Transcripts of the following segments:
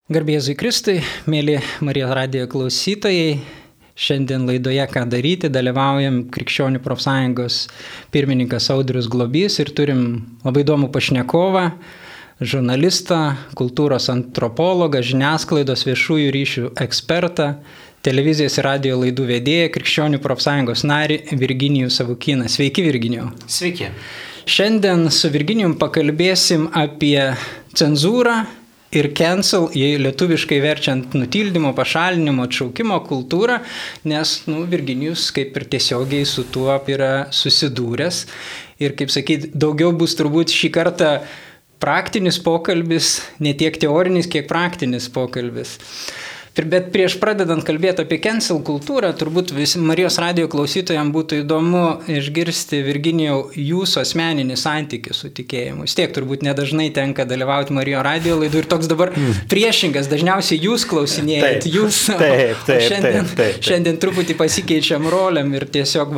Garbė Jėzui Kristui, mėly Marijos radijo klausytojai, šiandien laidoje Ką daryti dalyvaujam Krikščionių profsąjungos pirmininkas Audrius Globys ir turim labai įdomų pašnekovą, žurnalistą, kultūros antropologą, žiniasklaidos viešųjų ryšių ekspertą, televizijos ir radijo laidų vedėją, Krikščionių profsąjungos narį Virginijų Savukyną. Sveiki, Virginijau. Sveiki. Šiandien su Virginijum pakalbėsim apie cenzūrą ir cancel, jei lietuviškai verčiant nutildymo, pašalinimo, atšaukimo kultūrą, nes Virginijus kaip ir tiesiogiai su tuo yra susidūręs. Ir kaip sakyti, daugiau bus turbūt šį kartą praktinis pokalbis, ne tiek teorinis, kiek praktinis pokalbis. Bet prieš pradedant kalbėti apie cancel kultūrą, turbūt visi Marijos radijo klausytojams būtų įdomu išgirsti, Virginijau, jūsų asmeninį santykį su tikėjimu. Vis tiek turbūt nedažnai tenka dalyvauti Marijos radijo laidų ir toks dabar priešingas, dažniausiai jūs klausinėjat, šiandien truputį pasikeičiam roliam ir tiesiog,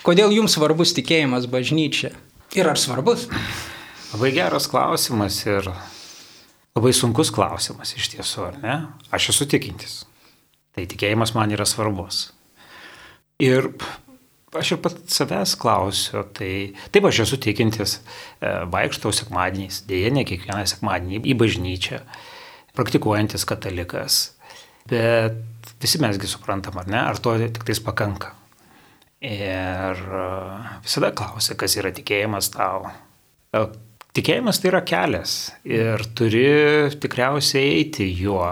kodėl jums svarbus tikėjimas bažnyčia? Ir ar svarbus? Labai geras klausimas ir labai sunkus klausimas iš tiesų, ar ne? Aš esu tikintis. Tai tikėjimas man yra svarbus. Ir aš ir pat savęs klausiu, tai taip aš esu tikintis, vaikštau sekmadieniais, dėja ne kiekvieną sekmadienį į bažnyčią, praktikuojantis katalikas. Bet visi mesgi suprantam, ar ne? Ar to tik tais pakanka? Ir visada klausia, kas yra tikėjimas tau. Tikėjimas tai yra kelias ir turi tikriausiai eiti juo,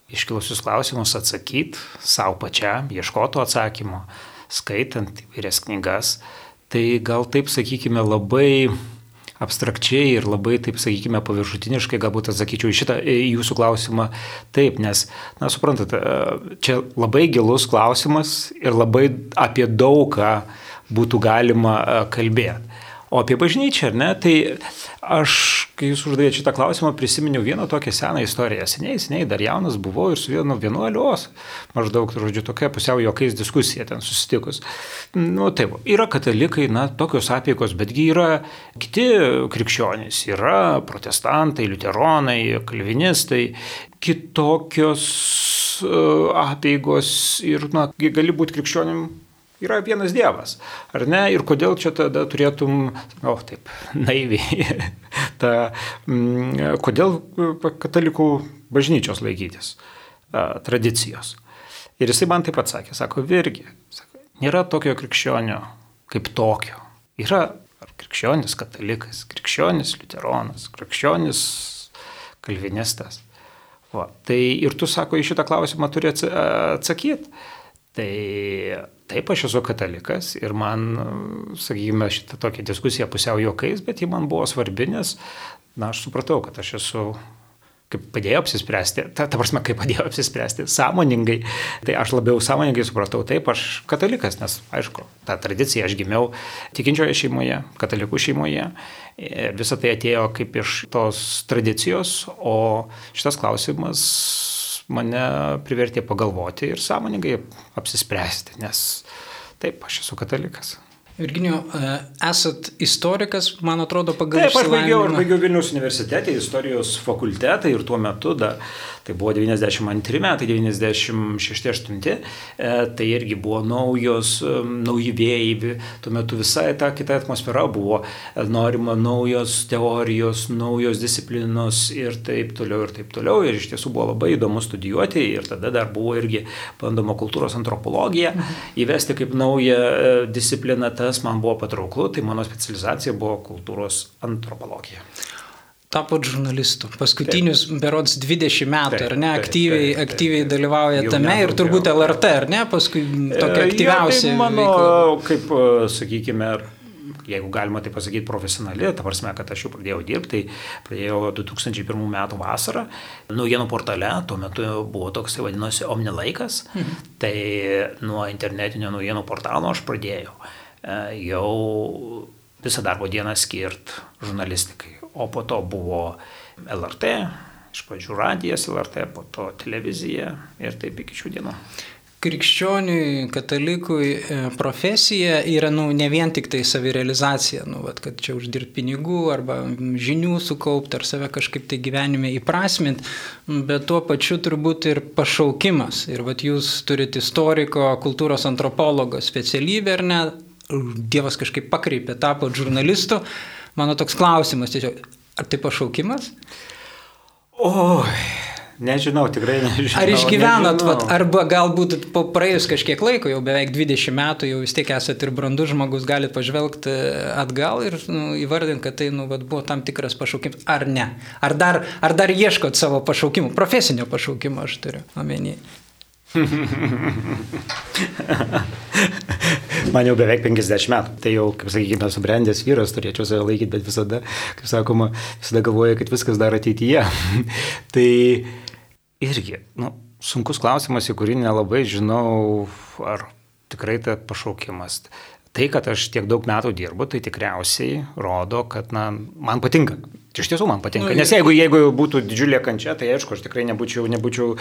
iškilusius klausimus atsakyti savo pačiam, ieškoti atsakymo, skaitant įvairias knygas. Tai gal taip, sakykime, labai abstrakčiai ir labai, taip sakykime, paviršutiniškai galbūt atsakyčiau į šitą jūsų klausimą taip, nes, suprantate, čia labai gilus klausimas ir labai apie daugą būtų galima kalbėti. O apie bažnyčią, ar ne, tai aš, kai jūs uždavėte šitą klausimą, prisiminiau vieną tokią seną istoriją. Seniai, dar jaunas buvau ir su vienu vienuolios, maždaug, tokia pusiau juokais diskusija ten susitikus. Taip, yra katalikai, tokios apeigos, betgi yra kiti krikščionys, yra protestantai, liuteronai, kalvinistai, kitokios apeigos ir, gali būti krikščionim. Yra vienas Dievas, ar ne? Ir kodėl čia tada turėtum, taip, naiviai, kodėl katalikų bažnyčios laikytis tradicijos. Ir jisai man taip atsakė, sako, Virgi, nėra tokio krikščionio kaip tokio. Yra krikščionis katalikas, krikščionis liuteronas, krikščionis kalvinistas. Tai ir tu, sako, į šitą klausimą turi atsakyti. Tai taip, aš esu katalikas ir man, sakykime, šitą tokią diskusiją pusiau juokais, bet ji man buvo svarbi, nes, aš supratau, kad aš esu, kaip padėjau apsispręsti, ta prasme, kaip padėjau apsispręsti, sąmoningai, tai aš labiau sąmoningai supratau, taip, aš katalikas, nes, aišku, tą tradiciją aš gimiau tikinčioje šeimoje, katalikų šeimoje, visą tai atėjo kaip iš tos tradicijos, o šitas klausimas mane privertė pagalvoti ir sąmoningai apsispręsti, nes taip, aš esu katalikas. Virginijau, esat istorikas, man atrodo, pagal išsilavinimą. Aš baigiau Vilniaus universitete, istorijos fakultetą ir tuo metu, tai buvo 92 metai, 96-8, tai irgi buvo nauji vėjai, tuo metu visai ta kita atmosfera buvo, norima naujos teorijos, naujos disciplinos ir taip toliau, ir iš tiesų buvo labai įdomu studijuoti ir tada dar buvo irgi bandoma kultūros antropologija įvesti kaip naują discipliną. Tas man buvo patrauklu, tai mano specializacija buvo kultūros antropologija. Tapot žurnalistu. Paskutinius berods 20 metų, ar ne, aktyviai dalyvauja tame ir turbūt LRT, ar ne, paskui tokia aktyviausia tai mano, veikla. Kaip, sakykime, jeigu galima tai pasakyti profesionali, ta prasme, kad aš jau pradėjau dirbti, tai pradėjau 2001 metų vasarą, naujienų portale, tuo metu buvo toks, vadinosi, Omni laikas, tai nuo internetinio naujienų portalo aš pradėjau jau visą darbo dieną skirt žurnalistikai, o po to buvo LRT, iš pradžių radijas LRT, po to televizija ir taip iki šių dienų. krikščioniui, katalikui profesija yra ne vien tik tai savirealizacija, kad čia uždirbti pinigų arba žinių sukaupti ar save kažkaip tai gyvenime įprasminti, bet tuo pačiu turbūt ir pašaukimas. Ir jūs turite istoriko, kultūros antropologo specialybę, ar ne? Dievas kažkaip pakreipė, tapo žurnalistu. Mano toks klausimas tiesiog, ar tai pašaukimas? Nežinau, tikrai nežinau. Ar išgyvenot, arba galbūt po praėjus kažkiek laiko, jau beveik 20 metų, jau vis tiek esate ir brandus žmogus, galite pažvelgti atgal ir įvardinti, kad tai buvo tam tikras pašaukimas, ar ne? Ar dar ieškot savo pašaukimų, profesinio pašaukimo aš turiu omeny. Man jau beveik 50 metų, tai jau, kaip sakykime, subrendęs vyras, turėčiau save laikyti, bet visada, kaip sakoma, visada galvoju, kad viskas dar ateityje. Tai irgi, sunkus klausimas, į kurį nelabai žinau, ar tikrai tai pašaukimas. Tai, kad aš tiek daug metų dirbu, tai tikriausiai rodo, kad man patinka. Iš tiesų man patinka, nes jeigu būtų didžiulė kančia, tai aišku, aš tikrai nebūčiau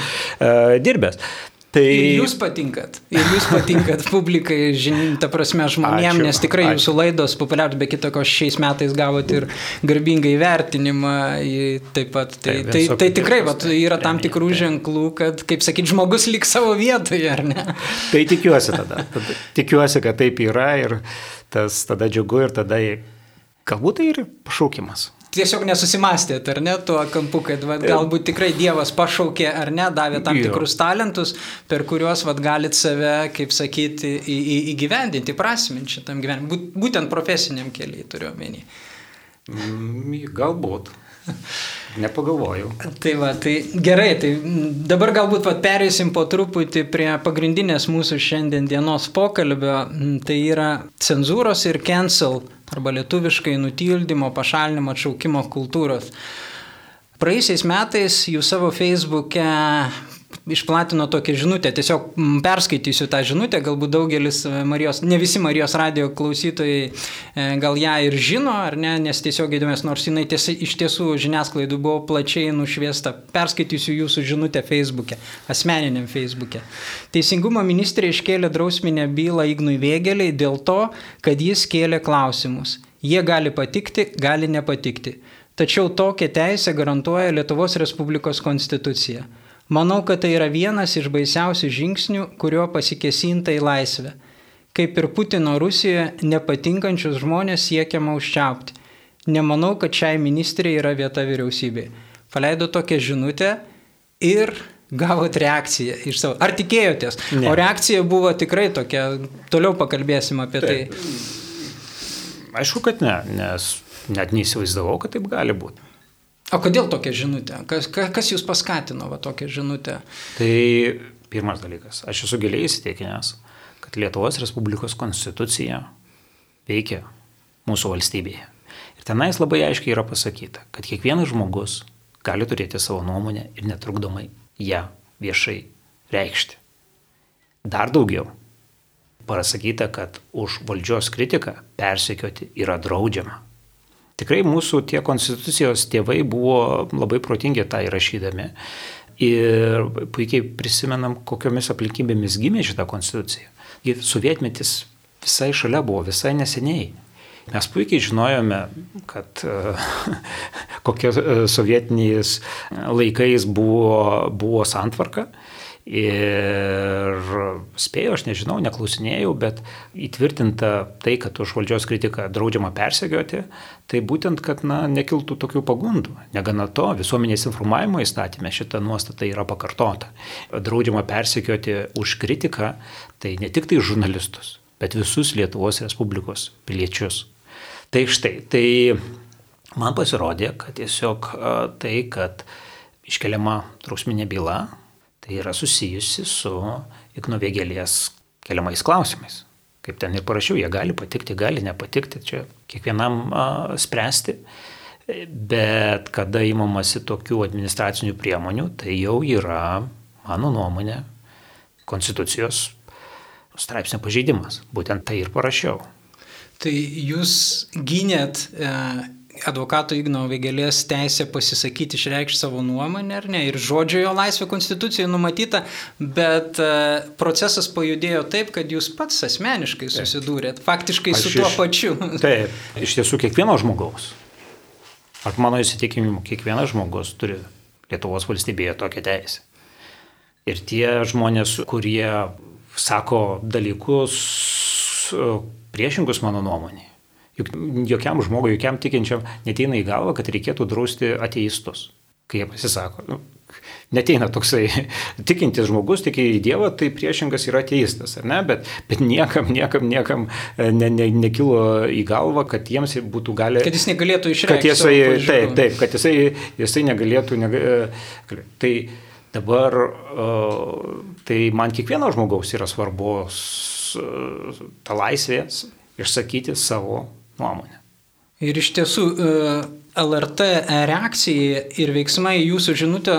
dirbęs. Tai... Ir jūs patinkat publikai, ta prasme žmonėm, nes tikrai jūsų laidos populiarios, be kitoko šiais metais gavot ir garbingą įvertinimą taip pat. Tai tikrai yra tam tikrų ženklų, kad, kaip sakyti, žmogus liks savo vietoje, ar ne? Tai tikiuosi tada. Tikiuosi, kad taip yra ir tas tada džiugu ir tada galbūt tai ir pašaukimas. Tiesiog nesusimastėt, ar ne, tuo kampu, kad galbūt tikrai Dievas pašaukė, ar ne, davė tam tikrus talentus, per kuriuos galit save, kaip sakyti, įgyvendinti, prasminti šitam gyvenimui. Būtent profesiniam keliai turiu omeny. Galbūt. Nepagalvojau. Tai gerai, tai dabar galbūt perėsim po truputį prie pagrindinės mūsų šiandien dienos pokalbio, tai yra cenzūros ir cancel, arba lietuviškai nutildymo, pašalinimo, atšaukimo kultūros. Praėjusiais metais jūs savo Facebook'e išplatino tokią žinutę, tiesiog perskaitysiu tą žinutę, galbūt daugelis ne visi Marijos radijo klausytojai gal ją ir žino, ar ne, nes tiesiog įdomės, nors jinai iš tiesų žiniasklaidų buvo plačiai nušviesta. Perskaitysiu jūsų žinutę Facebook'e, asmeniniam Facebook'e. Teisingumo ministrė iškėlė drausminę bylą Ignui Vėgėlei dėl to, kad jis kėlė klausimus. Jie gali patikti, gali nepatikti. Tačiau tokią teisę garantuoja Lietuvos Respublikos konstitucija. Manau, kad tai yra vienas iš baisiausių žingsnių, kurio pasikėsinta į laisvę. Kaip ir Putino Rusijoje, nepatinkančius žmonės siekiama užčiaupti. Nemanau, kad šiai ministrė yra vieta vyriausybėje. Paleido tokią žinutę ir gavot reakciją iš savo. Ar tikėjotės? Ne. O reakcija buvo tikrai tokia, toliau pakalbėsim apie tai. Aišku, kad ne, nes net neįsivaizdavau, kad taip gali būti. O kodėl tokia žinutė? Kas jūs paskatino tokią žinutę? Tai pirmas dalykas. Aš esu giliai įsitikinęs, kad Lietuvos Respublikos konstitucija veikia mūsų valstybėje. Ir tenais labai aiškiai yra pasakyta, kad kiekvienas žmogus gali turėti savo nuomonę ir netrukdomai ją viešai reikšti. Dar daugiau. Pasakyta, kad už valdžios kritiką persekioti yra draudžiama. Tikrai mūsų tie konstitucijos tėvai buvo labai protingi tą įrašydami ir puikiai prisimenam, kokiomis aplinkybėmis gimė šitą konstituciją. Sovietmetis visai šalia buvo, visai neseniai. Mes puikiai žinojome, kad kokie sovietiniais laikais buvo santvarka. Ir spėjau, aš nežinau, neklausinėjau, bet įtvirtinta tai, kad už valdžios kritiką draudžiama persekioti, tai būtent, kad nekiltų tokių pagundų. Negana to, visuomenės informavimo įstatyme šita nuostata yra pakartota. Draudžiama persekioti už kritiką, tai ne tik tai žurnalistus, bet visus Lietuvos Respublikos piliečius. Tai štai, tai man pasirodė, kad tiesiog tai, kad iškeliama drausminė byla, tai yra susijusi su Igno Vėgėlės keliamais klausimais. Kaip ten ir parašiau, jie gali patikti, gali nepatikti, čia kiekvienam spręsti. Bet kada įmamasi tokių administracinių priemonių, tai jau yra, mano nuomonė, konstitucijos straipsnio pažeidimas. Būtent tai ir parašiau. Tai jūs gynėt advokato Igno Vėgėlės teisė pasisakyti, išreikšti savo nuomonę, ar ne, ir žodžio jo laisvė konstitucijoje numatyta, bet procesas pajudėjo taip, kad jūs pats asmeniškai susidūrėt, faktiškai su tuo pačiu. Taip, iš tiesų kiekvieno žmogaus, ar mano įsitikinimu, kiekvienas žmogus turi Lietuvos valstybėje tokią teisę. Ir tie žmonės, kurie sako dalykus priešingus mano nuomonė, juk jokiam žmogui, jokiam tikinčiam neteina į galvą, kad reikėtų drausti ateistus, kai jie pasisako. Neteina toksai tikintis žmogus, tiki į Dievą, tai priešingas yra ateistas, ar ne? Bet niekam nekilo į galvą, kad jiems būtų gali... Kad jis negalėtų išreikšti savo pažiūrų. Taip, kad jisai negalėtų... Tai dabar, tai man kiekvieno žmogaus yra svarbus ta laisvė išsakyti savo nuomonę. Ir iš tiesų LRT reakcija ir veiksmai jūsų žinutę,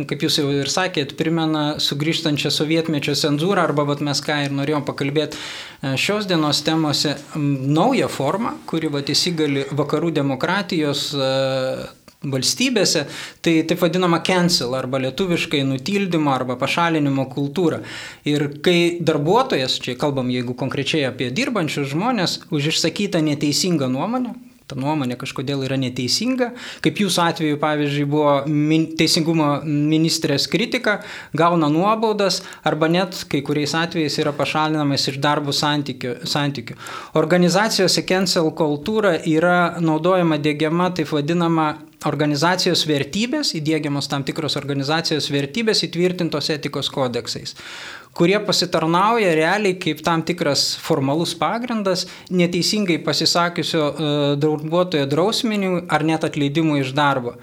kaip jūs jau ir sakėt, primena sugrįžtančią sovietmečio cenzūrą, arba mes ką ir norėjom pakalbėti šios dienos temose, naują formą, kuri įsigali vakarų demokratijos valstybėse, tai taip vadinama cancel arba lietuviškai nutildymo arba pašalinimo kultūra. Ir kai darbuotojas, čia kalbam jeigu konkrečiai apie dirbančius žmonės, už išsakytą neteisingą nuomonę, ta nuomonė kažkodėl yra neteisinga, kaip jūsų atveju, pavyzdžiui, buvo teisingumo ministrės kritika, gauna nuobaudas arba net kai kuriais atvejais yra pašalinamas iš darbo santykių. Organizacijose cancel kultūra yra naudojama, diegiama, taip vadinama organizacijos vertybės, įdiegiamos tam tikros organizacijos vertybės įtvirtintos etikos kodeksais, kurie pasitarnauja realiai kaip tam tikras formalus pagrindas neteisingai pasisakiusio darbuotojo drausminiui ar net atleidimui iš darbo.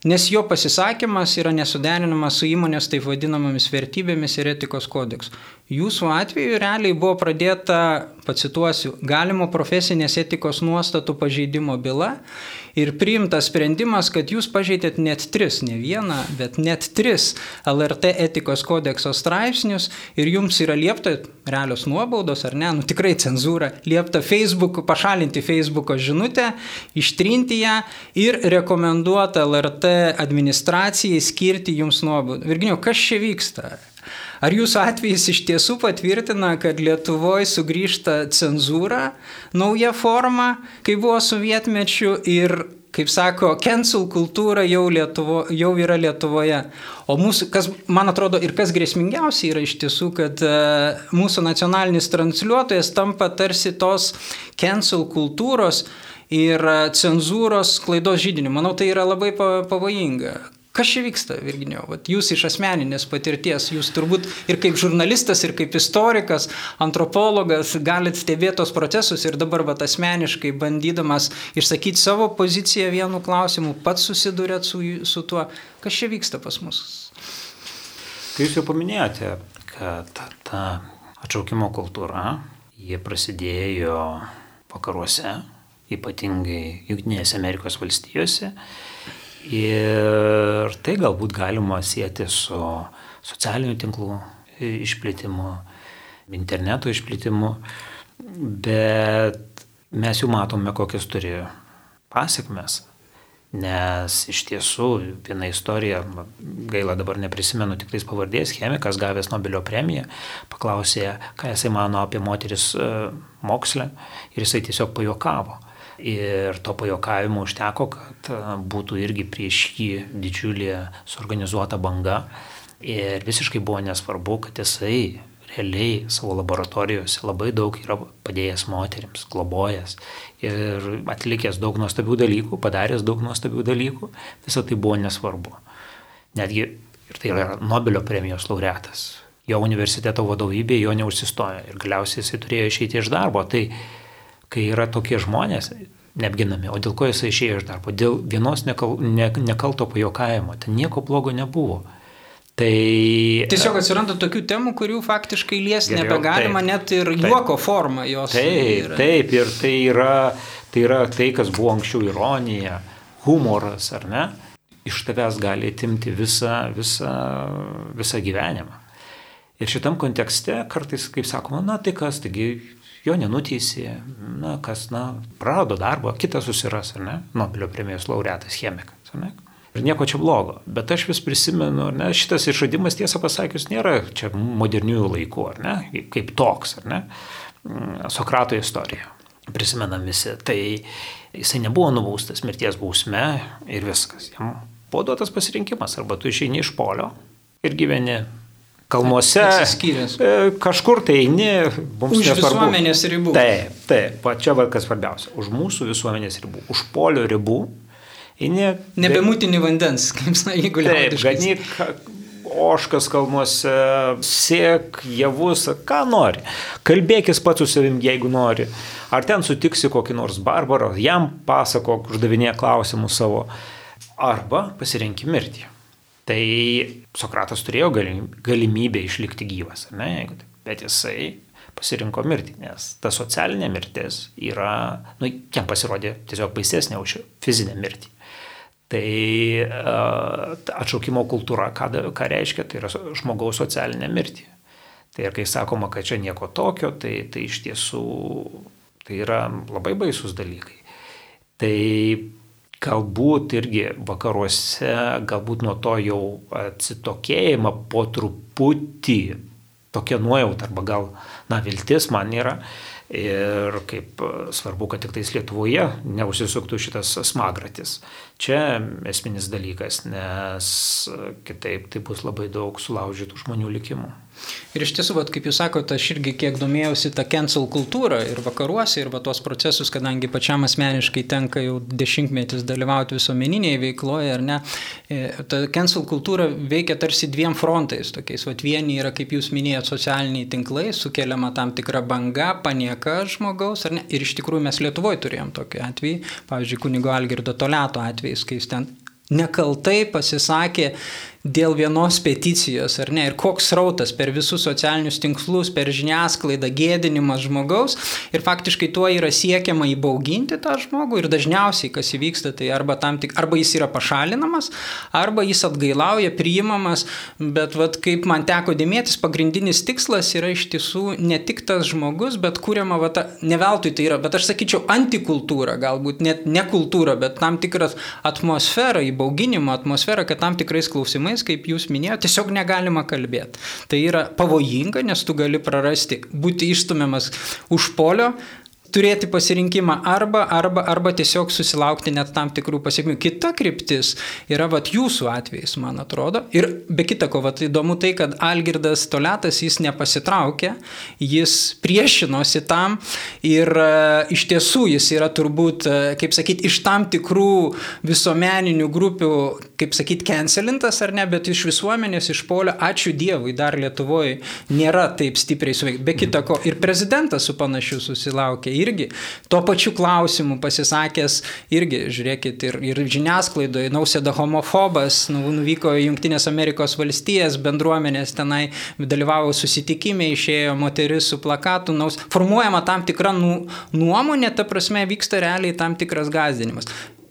Nes jo pasisakymas yra nesuderinamas su įmonės taip vadinamomis vertybėmis ir etikos kodeksu. Jūsų atveju realiai buvo pradėta, pacituosiu, galimo profesinės etikos nuostatų pažeidimo byla ir priimtas sprendimas, kad jūs pažeidėt net 3, ne vieną, bet net 3 LRT etikos kodekso straipsnius ir jums yra liepta, realios nuobaudos ar ne, tikrai cenzūra, liepta pašalinti Facebooko žinutę, ištrinti ją ir rekomenduota LRT administracijai skirti jums nuobaudą. Virginijau, kas čia vyksta? Ar jūsų atvejis iš tiesų patvirtina, kad Lietuvoje sugrįžta cenzūra, nauja forma, kai buvo sovietmečiu ir, kaip sako, cancel kultūra jau yra Lietuvoje. O mūsų, kas, man atrodo, ir kas grėsmingiausia yra iš tiesų, kad mūsų nacionalinis transliuotojas tampa tarsi tos cancel kultūros ir cenzūros klaidos židiniu. Manau, tai yra labai pavojinga. Kas čia vyksta, Virginijau? Jūs iš asmeninės patirties, jūs turbūt ir kaip žurnalistas, ir kaip istorikas, antropologas galite stebėti tos procesus ir dabar asmeniškai bandydamas išsakyti savo poziciją vienu klausimu, pats susidūrėt su tuo. Kas čia vyksta pas mus? Tai jūs jau paminėjote, kad ta atšaukimo kultūra, jie prasidėjo vakaruose, ypatingai Jungtinėse Amerikos valstijose. Ir tai galbūt galima sieti su socialinių tinklų išplėtimu, interneto išplėtimu, bet mes jau matome, kokias turi pasiekmes, nes iš tiesų viena istorija, gaila dabar neprisimenu tiktais pavardės, chemikas gavęs Nobelio premiją, paklausė, ką jisai mano apie moteris moksle ir jisai tiesiog pajuokavo. Ir to pajokavimo užteko, kad būtų irgi prieš jį didžiulė suorganizuota banga. Ir visiškai buvo nesvarbu, kad jisai realiai savo laboratorijose labai daug yra padėjęs moterims, globojęs ir atlikęs daug nuostabių dalykų, padaręs daug nuostabių dalykų. Visą tai buvo nesvarbu. Netgi, ir tai yra Nobelio premijos laureatas, jo universiteto vadovybė jo neužsistojo ir galiausiai jisai turėjo išeiti iš darbo. Tai kai yra tokie žmonės neapginami, o dėl ko jisai išėjo iš darbo? Dėl vienos nekalto pajokavimo. Ten nieko blogo nebuvo. Tai tiesiog atsiranda tokių temų, kurių faktiškai liesti nebegalima, net ir juoko forma jos. Taip, ir tai yra tai, kas buvo anksčiau ironija, humoras, ar ne? Iš tavęs gali atimti visą gyvenimą. Ir šitam kontekste kartais, kaip sakoma, tai kas, taigi jo nenuteisė, prarado darbą, kitas susiras, ar ne, Nobelio premijos laureatas chemikas, ar ne. Ir nieko čia blogo, bet aš vis prisimenu, ar ne, šitas išradimas, tiesą pasakius, nėra čia moderniųjų laikų, ar ne, kaip toks, ar ne, Sokrato istorija, prisimenam visi, tai jisai nebuvo nubaustas mirties bausme ir viskas, jam buvo duotas pasirinkimas, arba tu išeini iš polio ir gyveni kalnuose, kažkur tai eini, mums už nesvarbu. Visuomenės ribų. Taip, čia kas svarbiausia, už mūsų visuomenės ribų, už polio ribų. Nebemutini vandens, kaip jeigu liaudiškai. Taip, ganyk ožkas kalnuose, sėk, javus, ką nori. Kalbėkis pats su savim, jeigu nori. Ar ten sutiksi kokį nors barbarą, jam pasakok, uždavinėk klausimus savo. Arba pasirenki mirtį. Tai Sokratas turėjo galimybę išlikti gyvas, ne? Bet jisai pasirinko mirtį, nes ta socialinė mirtis yra, jam pasirodė tiesiog baisesnė už fizinę mirtį. Tai atšaukimo kultūra, ką reiškia, tai yra žmogaus socialinė mirtį. Tai ir kai sakoma, kad čia nieko tokio, tai iš tiesų tai yra labai baisus dalykai. Tai galbūt irgi vakaruose, galbūt nuo to jau atsitokėjimą po truputį tokia nuojauta, arba gal, viltis man yra. Ir kaip svarbu, kad tik tais Lietuvoje neužsisuktų šitas smagratis. Čia esminis dalykas, nes kitaip tai bus labai daug sulaužytų žmonių likimų. Ir iš tiesų, kaip jūs sakote, aš irgi kiek domėjausi tą cancel kultūrą ir vakaruose, ir tuos procesus, kadangi pačiam asmeniškai tenka jau dešimtmetis dalyvauti visuomeninėje veikloje, ar ne, ta cancel kultūra veikia tarsi dviem frontais tokiais. Vieni yra, kaip jūs minėjot, socialiniai tinklai, sukeliama tam tikra banga, panieka žmogaus, ar ne, ir iš tikrųjų mes Lietuvoje turėjom tokį atvejį, pavyzdžiui, kunigo Algirdo Toliato atvejis, kai jis ten nekaltai pasisakė dėl vienos peticijos, ar ne, ir koks srautas per visus socialinius tinklus, per žiniasklaidą, gėdinimas žmogaus, ir faktiškai tuo yra siekiama įbauginti tą žmogų, ir dažniausiai, kas įvyksta, tai arba jis yra pašalinamas, arba jis atgailauja, priimamas, bet kaip man teko dėmėtis, pagrindinis tikslas yra iš tiesų ne tik tas žmogus, bet kuriama, ne veltui tai yra, bet aš sakyčiau, antikultūra, galbūt net ne kultūra, bet tam tikras atmosfera, įbauginimo atmosfera, kad tam tikrais klausimais, kaip jūs minėjote, tiesiog negalima kalbėti. Tai yra pavojinga, nes tu gali prarasti, būti išstumiamas už polio, turėti pasirinkimą arba tiesiog susilaukti net tam tikrų pasiekmių. Kita kryptis yra jūsų atvejais, man atrodo. Ir be kita ko, įdomu tai, kad Algirdas Toliatas jis nepasitraukė, jis priešinosi tam ir iš tiesų jis yra turbūt, kaip sakyti, iš tam tikrų visuomeninių grupių, kaip sakyti, cancelintas ar ne, bet iš visuomenės, iš polio, ačiū Dievui, dar Lietuvoje nėra taip stipriai suveikti. Be kita ko, ir prezidentas su panašiu susilaukė. Irgi tuo pačiu klausimu pasisakęs, irgi, žiūrėkit, ir žiniasklaidoje, Nausėda homofobas, nuvyko į Jungtinės Amerikos valstijas, bendruomenės tenai dalyvavo susitikime, išėjo moteris su plakatu, formuojama tam tikra nuomonė, ta prasme vyksta realiai tam tikras gąsdinimas.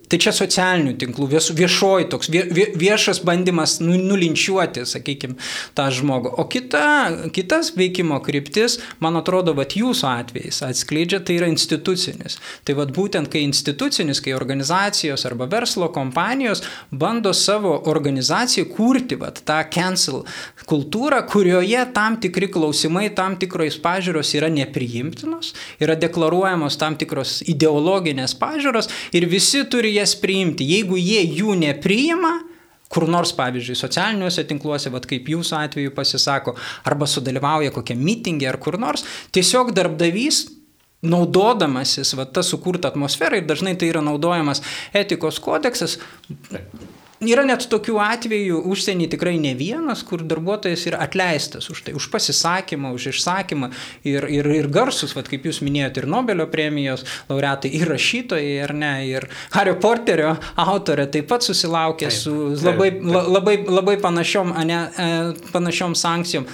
Tai čia socialinių tinklų, viešoji toks, viešas bandymas nulinčiuoti, sakykime, tą žmogų. O kitas veikimo kryptis, man atrodo, jūsų atvejais atskleidžia, tai yra institucinis. Tai būtent, kai institucinis, kai organizacijos arba verslo kompanijos bando savo organizacijai kurti tą cancel kultūrą, kurioje tam tikri klausimai, tam tikros pažiūros yra nepriimtinos, yra deklaruojamos tam tikros ideologinės pažiūros ir visi turi jas priimti. Jeigu jie jų nepriima, kur nors, pavyzdžiui, socialiniuose tinkluose, kaip jūsų atveju pasisako, arba sudalyvauja kokią mitingę ar kur nors, tiesiog darbdavys, naudodamasis tą sukurtą atmosferą, ir dažnai tai yra naudojamas etikos kodeksas. Yra net tokių atvejų užsienį tikrai ne vienas, kur darbuotojas yra atleistas už tai, už pasisakymą, už išsakymą ir garsus, kaip jūs minėjote, ir Nobelio premijos laureatai, ir rašytojai, ar ne, ir Hario Poterio autorė taip pat susilaukė su labai panašiom sankcijom.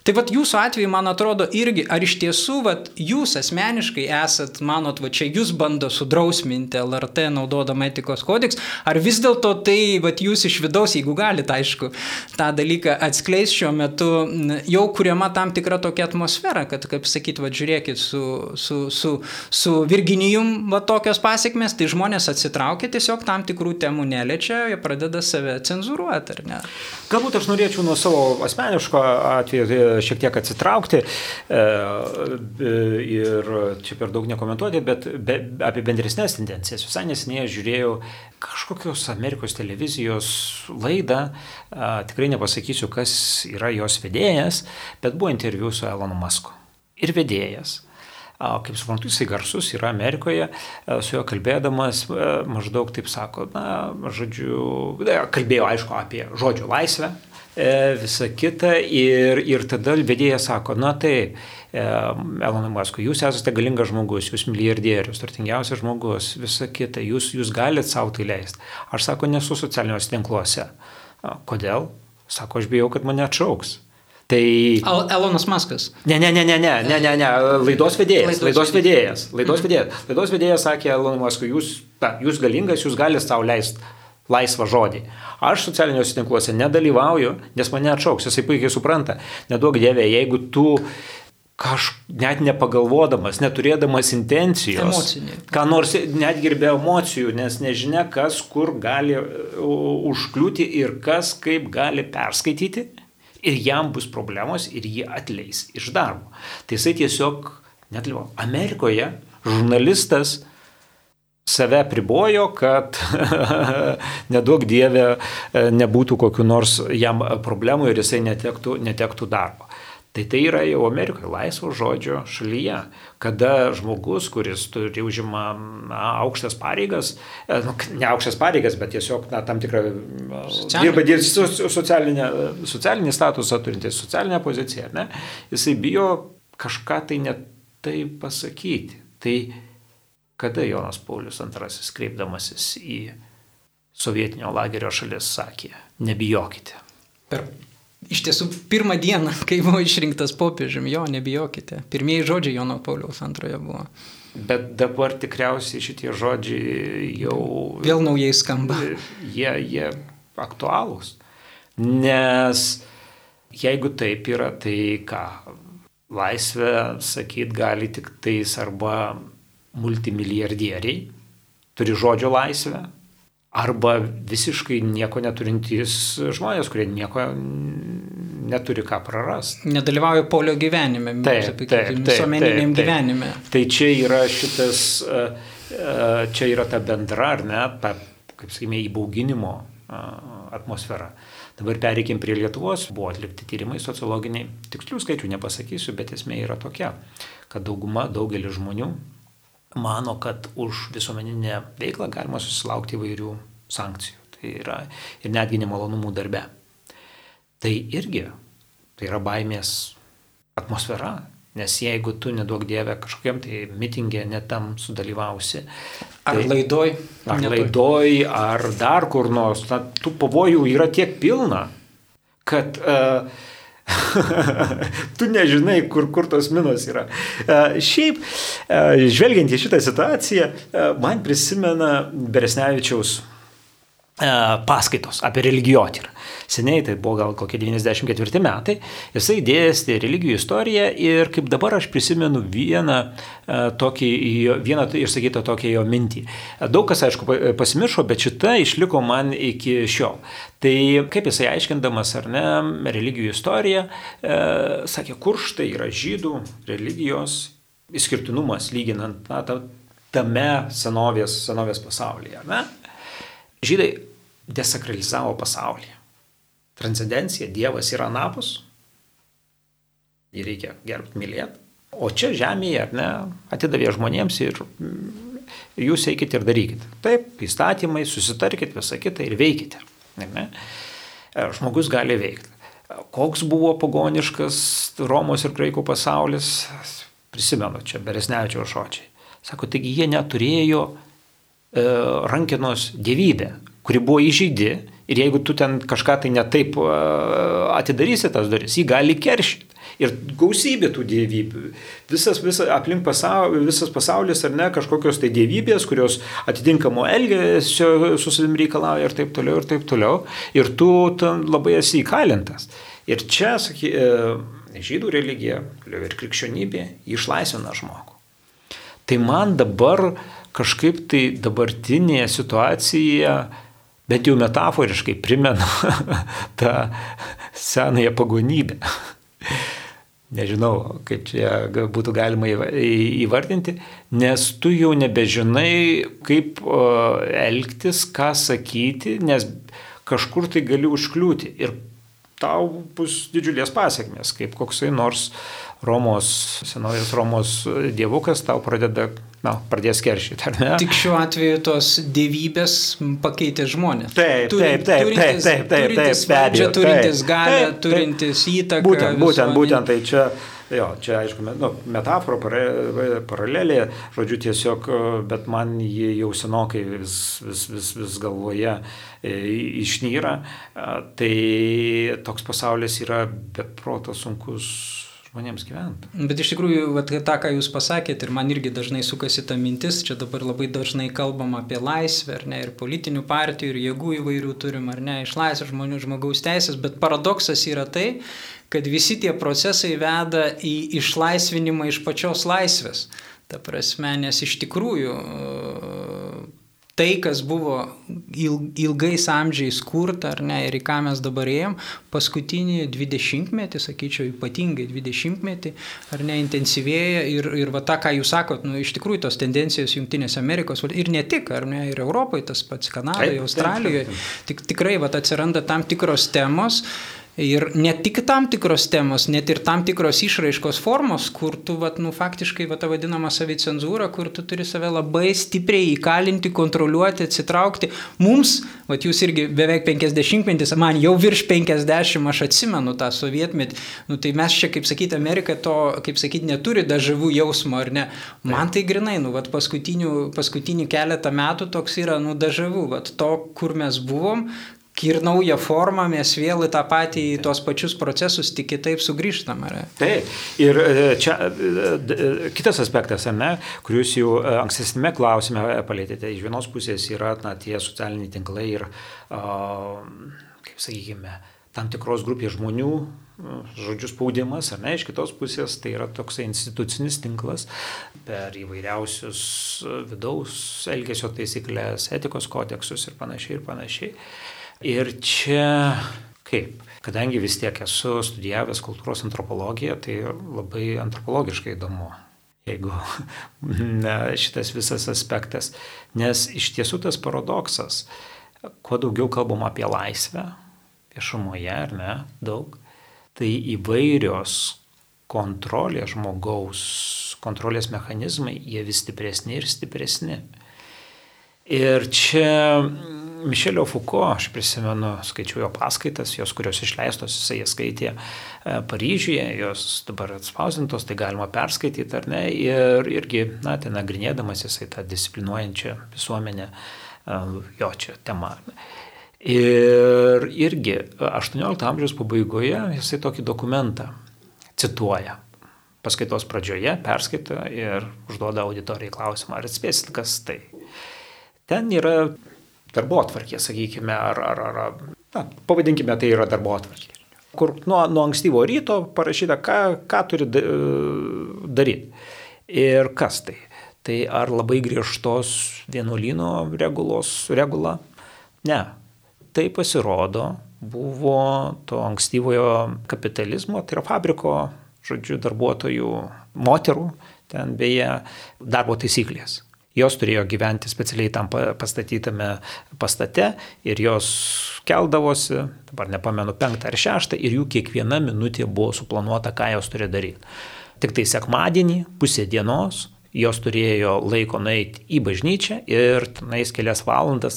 Tai vat jūsų atveju, man atrodo, irgi, ar iš tiesų, vat jūs asmeniškai esat, manot, va čia jūs bando sudrausminti LRT naudodama etikos kodeks, ar vis dėlto tai, vat jūs iš vidaus, jeigu galite, aišku, tą dalyką atskleis šiuo metu, jau kuriama tam tikra tokia atmosfera, kad, kaip sakyt, vat žiūrėkit, su Virginijum va tokios pasiekmes, tai žmonės atsitraukia, tiesiog tam tikrų temų neliečia, jie pradeda save cenzuruoti, ar ne? Galbūt aš norėčiau nuo savo asmeniško atveju šiek tiek atsitraukti ir čia per daug nekomentuoti, bet apie bendresnės tendencijas. Visai neseniai žiūrėjau kažkokios Amerikos televizijos laidą, tikrai nepasakysiu, kas yra jos vedėjas, bet buvo interviu su Elonu Musku. Ir vedėjas. Kaip suprantu, jisai garsus yra Amerikoje, su juo kalbėdamas maždaug taip sako, kalbėjo aišku apie žodžio laisvę, visą kitą ir tada vedėjas sako, Elonai Muskui, jūs esate galingas žmogus, jūs milijardierius, turtingiausias žmogus, visą kitą, jūs galite savo tai leisti. Aš sako, nesu socialiniuose tinkluose. Kodėl? Sako, aš bijau, kad mane atšauks. Tai... Elonas Muskas. Ne, laidos vedėjas. Laidos vedėjas sakė Elonui Muskui, jūs galingas, jūs galite savo leisti laisvą žodį. Aš socialiniuose tinkluose nedalyvauju, nes mane atšauks, jisai puikiai supranta. Neduok Dieve, jeigu tu net nepagalvodamas, neturėdamas intencijos, ką nors netgi ir be emocijų, nes nežinia, kas kur gali užkliūti ir kas kaip gali perskaityti, ir jam bus problemos ir jį atleis iš darbo. Tai jisai tiesiog nedalyvavo. Amerikoje žurnalistas save pribojo, kad neduok Dieve nebūtų kokių nors jam problemų ir jisai netektų darbo. Tai yra jau Amerikoje laisvo žodžio šalyje, kada žmogus, kuris užima aukštas pareigas, ne aukštas pareigas, bet tiesiog tam tikrą dirba socialinį statusą turintis, socialinę poziciją, ne? Jisai bijo kažką tai ne tai pasakyti. Tai kada Jonas Paulius II kreipdamasis į sovietinio lagerio šalis sakė, nebijokite. Iš tiesų, pirmą dieną, kai buvo išrinktas popiežiumi, nebijokite. Pirmieji žodžiai Jono Pauliaus II buvo. Bet dabar tikriausiai šitie žodžiai jau... Vėl naujai skamba. Jie aktualūs. Nes jeigu taip yra, tai ką? Laisvę, sakyt, gali tik tais arba multimilijardieriai, turi žodžio laisvę, arba visiškai nieko neturintys žmonės, kurie nieko neturi ką prarasti. Nedalyvauja polio gyvenime, visuomeniniam gyvenime. Tai čia yra čia yra ta bendra, ar ne, ta, kaip sakykime, įbauginimo atmosfera. Dabar pereikim prie Lietuvos, buvo atlikti tyrimai sociologiniai, tikslių skaičių nepasakysiu, bet esmė yra tokia, kad daugelis žmonių mano, kad už visuomeninę veiklą galima susilaukti įvairių sankcijų. Tai yra ir netgi nemalonumų darbe. Tai irgi, tai yra baimės atmosfera, nes jeigu tu neduok Dieve kažkokiam tai mitingė netam sudalyvausi. Ar laidoj. Ar dar kur nors, tų pavojų yra tiek pilna, kad... tu nežinai, kur tos minos yra. Šiaip, žvelgiant į šitą situaciją, man prisimena Beresnevičiaus paskaitos apie religijotyrą. Seniai, tai buvo gal kokie 94 metai, jisai dėstė religijų istoriją ir kaip dabar aš prisimenu vieną išsakytą tokią jo mintį. Daug kas, aišku, pasimiršo, bet šita išliko man iki šiol. Tai kaip jisai aiškindamas, ar ne, religijų istoriją, sakė, kur štai yra žydų religijos išskirtinumas lyginant tame senovės pasaulyje. Ne? Žydai desakralizavo pasaulį. Transcendencija, Dievas yra anapus, jį reikia gerbti, mylėti. O čia žemėje, ar ne, atidavė žmonėms ir jūs eikite ir darykite. Taip, įstatymai, susitarkite visą kitą ir veikite. Ne? Žmogus gali veikti. Koks buvo pagoniškas Romos ir graikų pasaulis, prisimenu čia Beresnevičiaus žodžiai. Sako, taigi jie neturėjo rankenos dievybę, kuri buvo įžeidi ir jeigu tu ten kažką tai netaip atidarysi tas duris, jį gali keršyti. Ir gausybė tų dievybių. Visas pasaulis, ar ne, kažkokios tai dievybės, kurios atitinkamo elgesio su savim reikalauja ir taip toliau, ir taip toliau. Ir tu labai esi įkalintas. Ir čia, žydų religija ir krikščionybė išlaisvina žmogų. Tai man dabar kažkaip tai dabartinėje situacijoje, bent jau metaforiškai primena tą senąją pagonybę. Nežinau, kaip čia būtų galima įvardinti, nes tu jau nebežinai, kaip elgtis, ką sakyti, nes kažkur tai gali užkliūti ir tau bus didžiulės pasiekmės, kaip koksai nors senovės Romos dievukas tau pradės keršyti, ar ne? Tik šiuo atveju tos dievybės pakeitė žmonės. Taip. Turintis valdžią, turintis galę, turintis įtaką. Būtent tai čia. Jo, čia aišku, metafora, paralelė, žodžiu tiesiog, bet man jį jau senokai vis galvoje išnyra, tai toks pasaulis yra beproto sunkus žmonėms gyventi. Bet iš tikrųjų, tą, ką jūs pasakėt, ir man irgi dažnai sukasi ta mintis, čia dabar labai dažnai kalbam apie laisvę, ar ne, ir politinių partijų, ir jėgų įvairių turim, ar ne, išlaisvę žmonių, žmogaus teisės, bet paradoksas yra tai, kad visi tie procesai veda į išlaisvinimą iš pačios laisvės. Ta prasme, nes iš tikrųjų tai, kas buvo ilgais amžiais kurta, ar ne, ir į ką mes dabar ėjom, paskutinį 20-metį, sakyčiau, ypatingai 20-metį, ar ne, intensyvėja ir va tą, ką jūs sakot, iš tikrųjų tos tendencijos Jungtinėse Amerikos, ir ne tik, ar ne, ir Europoje, tas pats Kanadoje, Australijoje, tikrai va atsiranda tam tikros temos. Ir ne tik tam tikros temos, net ir tam tikros išraiškos formos, kur tu faktiškai ta vadinama savicenzūra, kur tu turi save labai stipriai įkalinti, kontroliuoti, atsitraukti. Mums, jūs irgi beveik 50-metis, man jau virš 50, aš atsimenu tą sovietmetį, tai mes čia, kaip sakyti, Amerika to, kaip sakyti, neturi dažavų jausmo, ar ne? Man tai grinai, paskutinį keletą metų toks yra, dažavų, to, kur mes buvom, ir naują formą mes vėl į tą patį, į tos pačius procesus tik kitaip sugrįžtam. Taip. Ir čia kitas aspektas, ar ne, kur jūs jau ankstesnėme klausime palėtėte, iš vienos pusės yra tie socialiniai tinklai ir, kaip sakykime, tam tikros grupės žmonių, žodžių spaudimas, ar ne, iš kitos pusės tai yra toksai institucinis tinklas per įvairiausius vidaus elgesio taisyklės, etikos kodeksus ir panašiai. Ir čia kaip? Kadangi vis tiek esu studijavęs kultūros antropologiją, tai labai antropologiškai įdomu, jeigu šitas visas aspektas. Nes iš tiesų tas paradoksas, kuo daugiau kalbam apie laisvę, viešumoje, ar ne, daug, tai įvairios kontrolės žmogaus, kontrolės mechanizmai, jie vis stipresni ir stipresni. Ir čia Mišelio Foucault, aš prisimenu, skaičiau jo paskaitas, jos, kurios išleistos, jisai skaitė Paryžiuje, jos dabar atspausintos, tai galima perskaityti, ar ne, ir irgi, ten nagrinėdamas jisai tą disciplinuojančią visuomenę, jo čia tema. Ir irgi 18 amžiaus pabaigoje jisai tokį dokumentą cituoja. Paskaitos pradžioje perskaita ir užduoda auditorijai klausimą, ar atspėsit, kas tai. Ten yra darbotvarkė, sakykime, pavadinkime, tai yra darbotvarkė, kur nuo ankstyvo ryto parašyta, ką turi daryti. Ir kas tai? Tai ar labai griežtos vienuolyno regula? Ne. Tai pasirodo buvo to ankstyvojo kapitalizmo, tai yra fabriko, darbuotojų, moterų, ten beje darbo taisyklės. Jos turėjo gyventi specialiai tam pastatytame pastate ir jos keldavosi, dabar nepamenu, 5 ar 6, ir jų kiekviena minutė buvo suplanuota, ką jos turėjo daryti. Tik tai sekmadienį, pusė dienos, jos turėjo laiko nueiti į bažnyčią ir tenais kelias valandas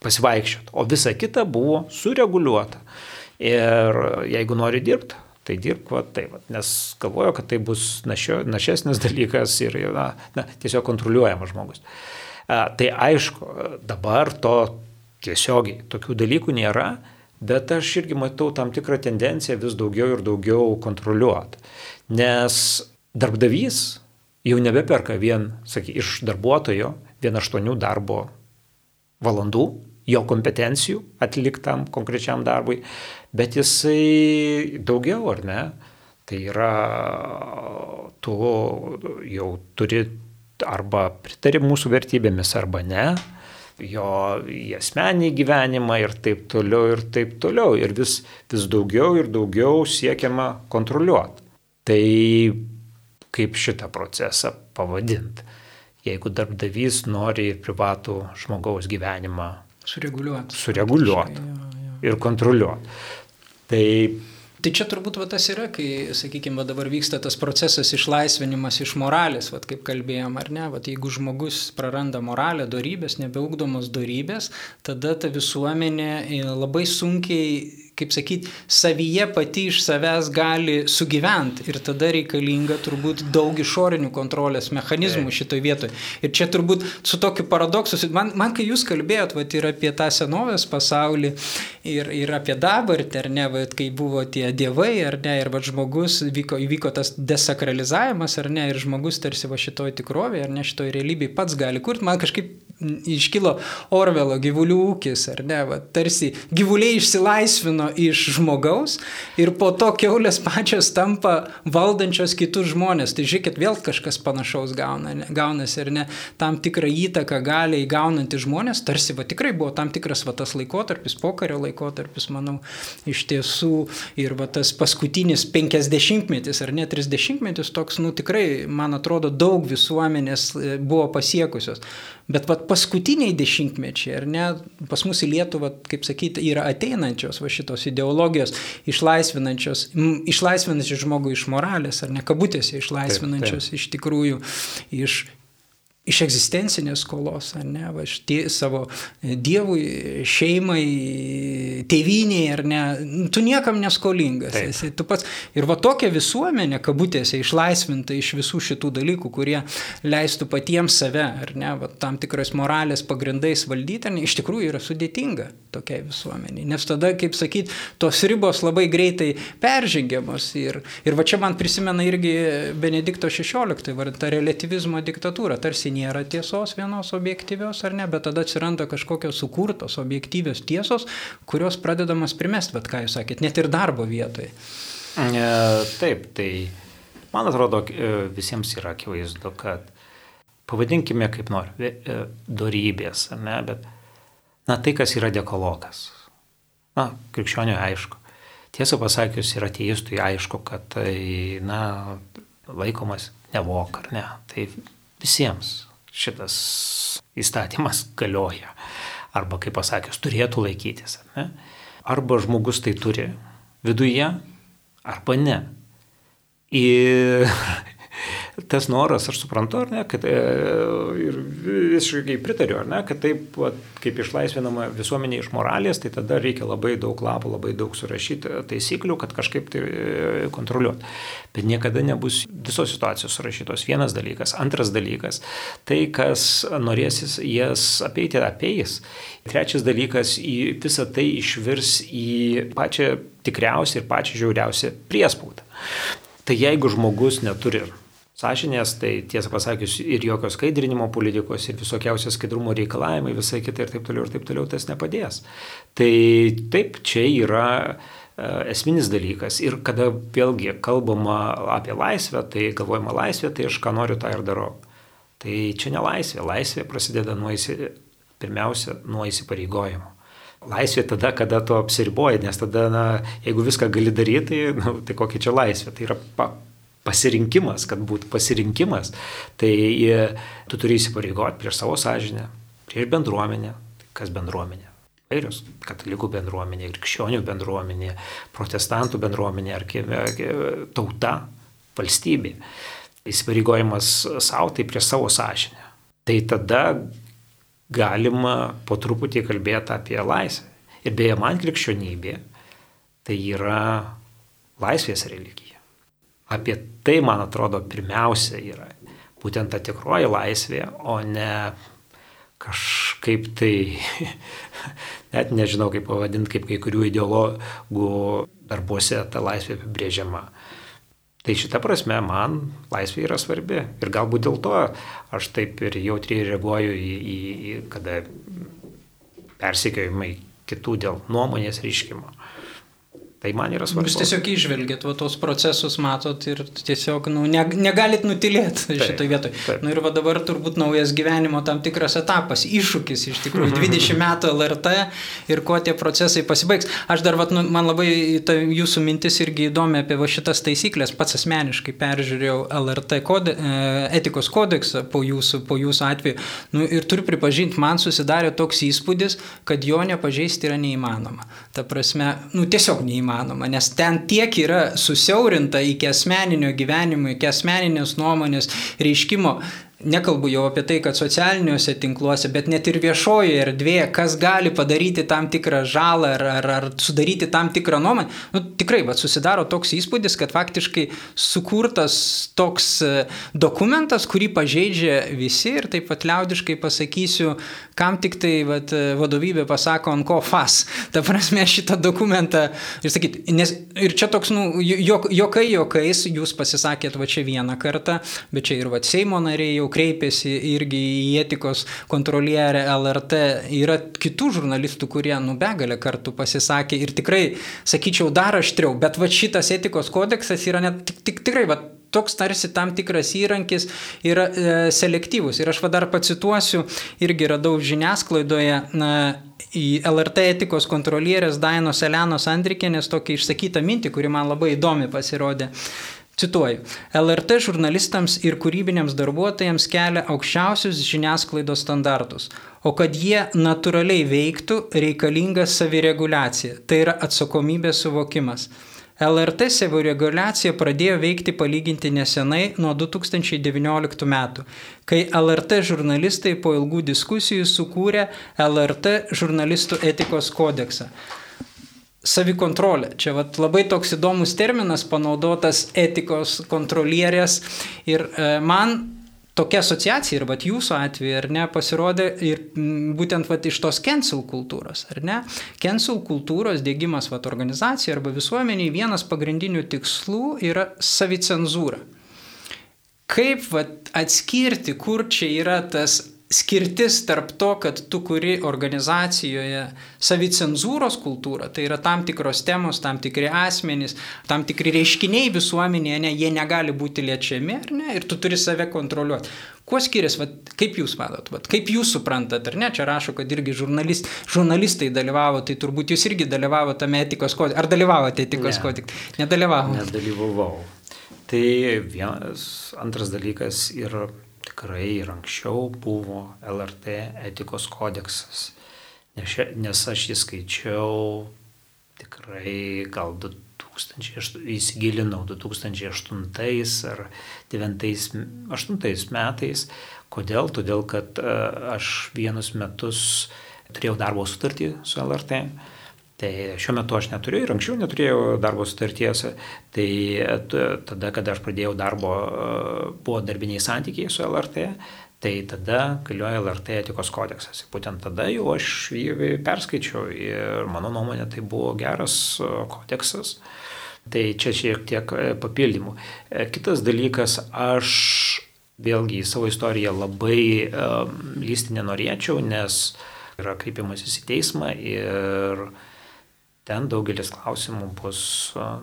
pasivaikščioti, o visa kita buvo sureguliuota. Ir jeigu nori dirbti, tai dirbk nes galvoju, kad tai bus našesnis dalykas ir tiesiog kontroliuojamas žmogus. Tai aišku, dabar to tiesiogiai tokių dalykų nėra, Bet aš irgi matau tam tikrą tendenciją vis daugiau ir daugiau kontroliuoti. Nes darbdavys jau nebeperka iš darbuotojo 8 darbo valandų, jo kompetencijų atliktam konkrečiam darbui, bet jisai daugiau, ar ne? Tai yra, tu jau turi arba pritari mūsų vertybėmis, arba ne, jo į asmenį gyvenimą ir taip toliau, ir taip toliau. Ir vis daugiau ir daugiau siekiama kontroliuoti. Tai kaip šitą procesą pavadinti? Jeigu darbdavys nori privatų žmogaus gyvenimą sureguliuoti ir kontroliuoti. Tai čia turbūt tas yra, kai, sakykime, dabar vyksta tas procesas išlaisvinimas iš moralės, kaip kalbėjom, ar ne, jeigu žmogus praranda moralę, dorybės, nebeugdomos dorybės, tada ta visuomenė labai sunkiai, kaip sakyti, savyje pati iš savęs gali sugyventi ir tada reikalinga turbūt daug išorinių kontrolės mechanizmų šitoj vietoje. Ir čia turbūt su tokiu paradoksu, man kai jūs kalbėjot ir apie tą senovės pasaulį ir apie dabartį, ar ne, kai buvo tie dievai, ar ne, ir žmogus, įvyko tas desakralizavimas, ar ne, ir žmogus tarsi šitoj tikrovėje, ar ne, šitoj realybėje pats gali kurti, man kažkaip iškilo Orvelo gyvulių ūkis, ar ne, tarsi gyvuliai išsilaisvino iš žmogaus ir po to kiaulės pačios tampa valdančios kitus žmonės. Tai žiūrėkit, vėl kažkas panašaus gaunasi, ar ne, tam tikrą įtaką gali įgaunantys žmonės, tarsi tikrai buvo tam tikras tas laikotarpis, pokario laikotarpis, manau, iš tiesų, ir tas paskutinis 50-metis ar ne 30-metis toks, tikrai, man atrodo, daug visuomenės buvo pasiekusios. Bet paskutiniai dešimtmečiai, ar ne, pas mus į Lietuvą, kaip sakyti, yra ateinančios šitos ideologijos, išlaisvinančios žmogų iš moralės, ar ne, kabutėse išlaisvinančios taip. Iš tikrųjų iš egzistencinės skolos, ar ne, savo dievui, šeimai, tėvynei, ar ne, tu niekam neskolingas esi, tu pats. Ir tokia visuomenė, kabutėse, išlaisvinta iš visų šitų dalykų, kurie leistų patiems save, ar ne, tam tikrais moralės pagrindais valdyti, iš tikrųjų yra sudėtinga tokiai visuomeniai. Nes tada, kaip sakyti, tos ribos labai greitai peržengiamos. Ir čia man prisimena irgi Benedikto XVI, ta relativizmo diktatūra, tarsi nėra tiesos vienos objektyvios, ar ne, bet tada atsiranda kažkokios sukurtos objektyvios tiesos, kurios pradedamas primesti, ką jūs sakėt, net ir darbo vietoje. Taip, tai man atrodo, visiems yra akivaizdu, kad pavadinkime kaip nori, dorybės, ar ne, bet tai, kas yra dekalogas. Krikščioniui aišku. Tiesą pasakius, ir ateistui aišku, kad tai, laikomas nevok, ar ne. Tai visiems šitas įstatymas galioja. Arba, kaip pasakius, turėtų laikytis. Ne? Arba žmogus tai turi viduje, arba ne. Ir tas noras, aš suprantu, ar ne, kad ir visiškai pritariu, ar ne, kad taip, kaip išlaisvinama visuomenė iš moralės, tai tada reikia labai daug lapų, labai daug surašyti taisyklių, kad kažkaip tai kontroliuoti. Bet niekada nebus visos situacijos surašytos. Vienas dalykas. Antras dalykas, tai, kas norėsis jas apeiti, apeis. Trečias dalykas, visą tai išvirs į pačią tikriausią ir pačią žiauriausią priespaudą. Tai jeigu žmogus neturi sąžinės, tai tiesą pasakius ir jokio skaidrinimo politikos, ir visokiausios skaidrumo reikalavimai, visai kitai ir taip toliau, tas nepadės. Tai taip, čia yra esminis dalykas. Ir kada vėlgi kalbama apie laisvę, tai galvojama laisvė, tai aš ką noriu, tą ir darau. Tai čia ne laisvė. Laisvė prasideda pirmiausia nuo įsipareigojimo. Laisvė tada, kada tu apsiriboji, nes tada, jeigu viską gali daryti, tai kokia čia laisvė. Tai yra pasirinkimas, kad būtų pasirinkimas. Tai tu turi įsipareigoti prieš savo sąžinę, prieš bendruomenę. Kas bendruomenė? Vairios. Katalikų bendruomenė, krikščionių bendruomenė, protestantų bendruomenė, ar tauta, valstybė. Įsipareigojimas savo, tai prieš savo sąžinę. Tai tada galima po truputį kalbėti apie laisvę. Ir beje, man krikščionybė tai yra laisvės religija. Apie tai, man atrodo, pirmiausia yra būtent ta tikroji laisvė, o ne kažkaip tai, net nežinau kaip pavadinti, kaip kai kurių ideologų darbuose ta laisvė apibrėžiama. Tai šita prasme man laisvė yra svarbi. Ir galbūt dėl to aš taip ir jautriai reaguoju į kada persekiojimai kitų dėl nuomonės reiškimo. Tai man yra svarbu. Jūs tiesiog išvelgėt, tos procesus matot ir tiesiog negalit nutilėti šitoj vietoj. Ir dabar turbūt naujas gyvenimo tam tikras etapas, iššūkis iš tikrųjų, 20 metų LRT ir kuo tie procesai pasibaigs. Aš dar, man labai jūsų mintis irgi įdomi apie šitas taisyklės, pats asmeniškai peržiūrėjau LRT etikos kodeksą po jūsų atveju ir turiu pripažinti, man susidarė toks įspūdis, kad jo nepažeisti yra neįmanoma. Ta prasme, tiesiog neįmanoma. Nes ten tiek yra susiaurinta iki asmeninio gyvenimo, iki asmeninės nuomonės reiškimo. Nekalbu jau apie tai, kad socialiniuose tinkluose, bet net ir viešojoje erdvėje, kas gali padaryti tam tikrą žalą ar sudaryti tam tikrą nuomonę. Tikrai, susidaro toks įspūdis, kad faktiškai sukurtas toks dokumentas, kurį pažeidžia visi ir taip pat liaudiškai pasakysiu, kam tik tai vadovybė pasako ant ko fas. Ta prasme šitą dokumentą ir čia toks, jokais jūs pasisakėt čia vieną kartą, bet čia ir Seimo nariai jau kreipėsi irgi į etikos kontrolierę LRT. Yra kitų žurnalistų, kurie begalę kartų pasisakė ir tikrai, sakyčiau, dar aštriau, bet šitas etikos kodeksas yra tikrai toks tarsi tam tikras įrankis yra selektyvus. Ir aš dar pacituosiu, irgi radau žiniasklaidoje į LRT etikos kontrolierės Dainos Elenos Andrikienės tokią išsakytą mintį, kuri man labai įdomi pasirodė. Cituoju, LRT žurnalistams ir kūrybiniams darbuotojams kelia aukščiausius žiniasklaidos standartus, o kad jie natūraliai veiktų, reikalinga savireguliacija, tai yra atsakomybės suvokimas. LRT savireguliacija pradėjo veikti palyginti nesenai nuo 2019 metų, kai LRT žurnalistai po ilgų diskusijų sukūrė LRT žurnalistų etikos kodeksą. Savikontrolė. Čia labai toks įdomus terminas panaudotas etikos kontrolierės ir man tokia asociacija ir jūsų atveju, ar ne, pasirodė ir būtent iš tos cancel kultūros, ar ne? Cancel kultūros diegimas organizacijai arba visuomeniai vienas pagrindinių tikslų yra savicenzūra. Kaip atskirti, kur čia yra tas skirtis tarp to, kad tu kuri organizacijoje savicenzūros kultūrą, tai yra tam tikros temos, tam tikri asmenys, tam tikri reiškiniai visuomenėje, jie negali būti liečiami, ar ne, ir tu turi save kontroliuoti. Kuo skiriasi, kaip jūs matot, kaip jūs suprantat, ar ne, čia rašo, kad irgi žurnalistai dalyvavo, tai turbūt jūs irgi dalyvavo tame etikos kodekse, ar dalyvavote etikos kodekse? Nedalyvavau. Tai antras dalykas yra tikrai ir anksčiau buvo LRT etikos kodeksas, nes aš jį skaičiau tikrai gal įsigilinau 2008 ar 2008 metais. Kodėl? Todėl, kad aš vienus metus turėjau darbo sutartį su LRT. Tai šiuo metu aš neturiu ir anksčiau neturėjau darbo sutarties. Tai tada, kada aš pradėjau darbo, buvo darbiniai santykiai su LRT, tai tada galioja LRT etikos kodeksas. Būtent tada jau aš jį perskaičiau ir mano nuomonė tai buvo geras kodeksas. Tai čia šiek tiek papildymų. Kitas dalykas, aš vėlgi į savo istoriją labai lysti nenorėčiau, nes yra kreipimasis į teismą ir ten daugelis klausimų bus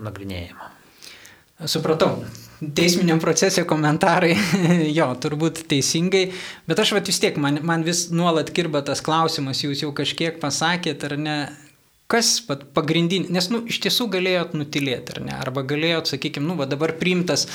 nagrinėjama. Supratau. Teisminiam procese komentarai, jo, turbūt teisingai, bet aš vis tiek, man vis nuolat kirba tas klausimas, jūs jau kažkiek pasakėt, ar ne, kas pagrindinė, nes iš tiesų galėjot nutilėti, ar ne, arba galėjot, sakykime, dabar priimtas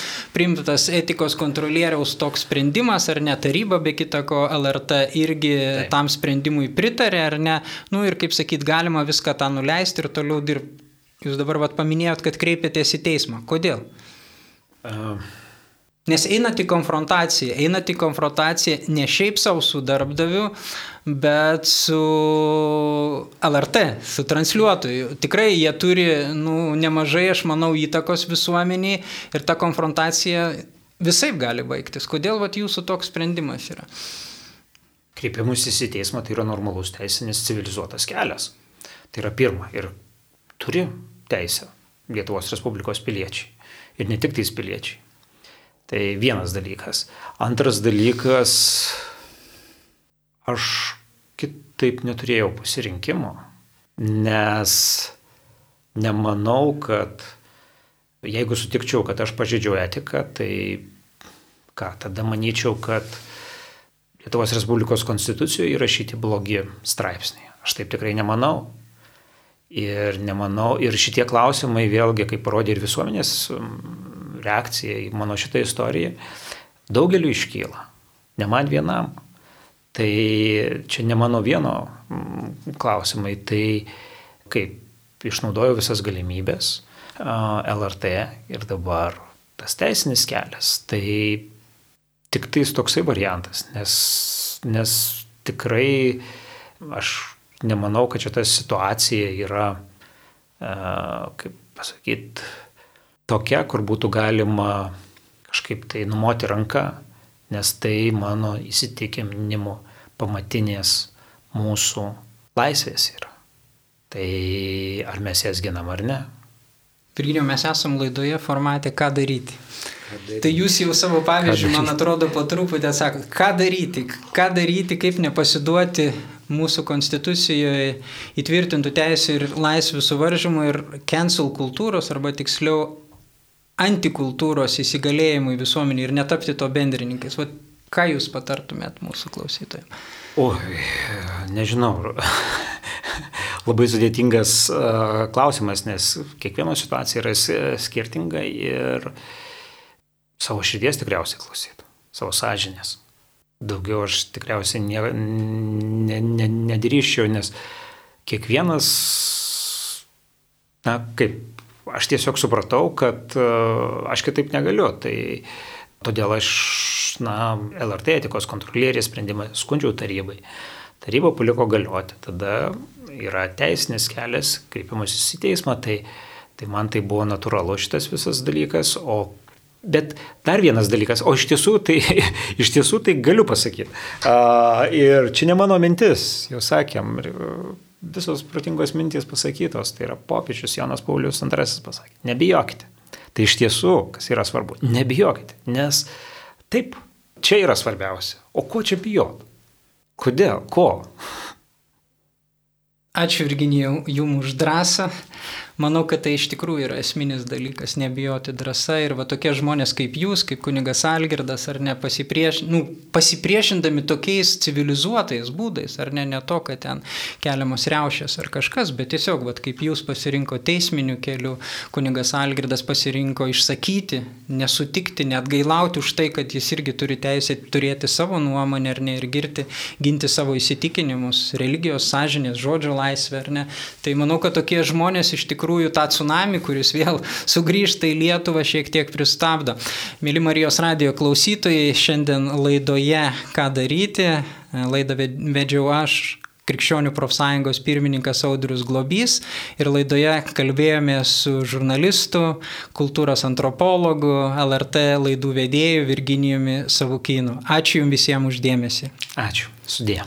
etikos kontrolieriaus toks sprendimas, ar ne, taryba be kitako LRT irgi tam sprendimui pritarė, ar ne, ir kaip sakyt, galima viską tą nuleisti ir toliau dirbti. Jūs dabar paminėjot, kad kreipėtės į teismą. Kodėl? Nes einat į konfrontaciją ne šiaip savo su darbdaviu, bet su LRT, su transliuotoju. Tikrai jie turi nemažai, aš manau, įtakos visuomeniai ir ta konfrontacija visaip gali baigtis. Kodėl jūsų toks sprendimas yra? Kreipimasis į teismą tai yra normalus teisinis civilizuotas kelias. Tai yra pirma. Ir turi teisę Lietuvos Respublikos piliečiai. Ir ne tik tais piliečiai. Tai vienas dalykas. Antras dalykas, aš kitaip neturėjau pasirinkimo, nes nemanau, kad jeigu sutikčiau, kad aš pažeidžiau etiką, tai tada manyčiau, kad Lietuvos Respublikos konstitucijoje įrašyti blogi straipsniai. Aš taip tikrai nemanau. Ir šitie klausimai vėlgi, kaip parodė ir visuomenės reakcija į mano šitą istoriją, daugeliu iškyla. Ne man vienam. Tai čia ne mano vieno klausimai. Tai kaip išnaudoju visas galimybės LRT ir dabar tas teisinis kelias. Tai tik tais toksai variantas, nes tikrai aš nemanau, kad šita situacija yra, kaip pasakyti, tokia, kur būtų galima kažkaip tai numoti ranką, nes tai mano įsitikinimu pamatinės mūsų laisvės yra. Tai ar mes jas ginam ar ne? Virginijau, mes esam laidoje formate ką daryti. Tai jūs jau savo pavyzdžių, man atrodo, po truputį atsakot, ką daryti, kaip nepasiduoti mūsų konstitucijoje įtvirtintų teisų ir laisvių suvaržymų ir cancel kultūros, arba tiksliau antikultūros įsigalėjimui visuomenį ir netapti to bendrininkais. Vat, ką jūs patartumėt mūsų klausytojams? Nežinau. Labai sudėtingas klausimas, nes kiekviena situacija yra skirtinga ir savo širdies tikriausiai klausytų, savo sąžinės. Daugiau aš tikriausiai nedrįsčiau, nes kiekvienas, aš tiesiog supratau, kad aš kitaip negaliu. Tai todėl aš, LRT etikos kontrolierės sprendimą skundžiau tarybai. Taryba paliko galioti. Tada yra teisinis kelias, kreipimasis į teismą, tai man tai buvo natūralu šitas visas dalykas, bet dar vienas dalykas, iš tiesų tai galiu pasakyti. Ir čia ne mano mintis, jau sakėm, visos protingos mintys pasakytos, tai yra popiežius Jonas Paulius II pasakė, nebijokite. Tai iš tiesų, kas yra svarbu, nebijokite, nes taip, čia yra svarbiausia. O ko čia bijot? Kodėl? Ko? Ačiū Virginijau jums už drąsą. Manau, kad tai iš tikrųjų yra esminis dalykas, nebijoti drąsa ir va tokie žmonės kaip jūs, kaip kunigas Algirdas, ar ne, pasipriešindami tokiais civilizuotais būdais, ar ne to, kad ten keliamos riaušės ar kažkas, bet tiesiog, va, kaip jūs pasirinko teisminių kelių, kunigas Algirdas pasirinko išsakyti, nesutikti, net gailauti už tai, kad jis irgi turi teisę turėti savo nuomonę, ar ne, ir ginti savo įsitikinimus, religijos, sąžinės, žodžio laisvę, ar ne. Tai manau, kad tokie žmonės iš tikrųjų tą tsunami, kuris vėl sugrįžta į Lietuvą, šiek tiek pristabdo. Mėly Marijos radijo klausytojai, šiandien laidoje ką daryti. Laidą vedžiau aš, Krikščionių profsąjungos pirmininkas Audrius Globys, ir laidoje kalbėjome su žurnalistu, kultūros antropologu, LRT laidų vedėju Virginijumi Savukynu. Ačiū jums visiems už dėmesį. Ačiū. Sudie.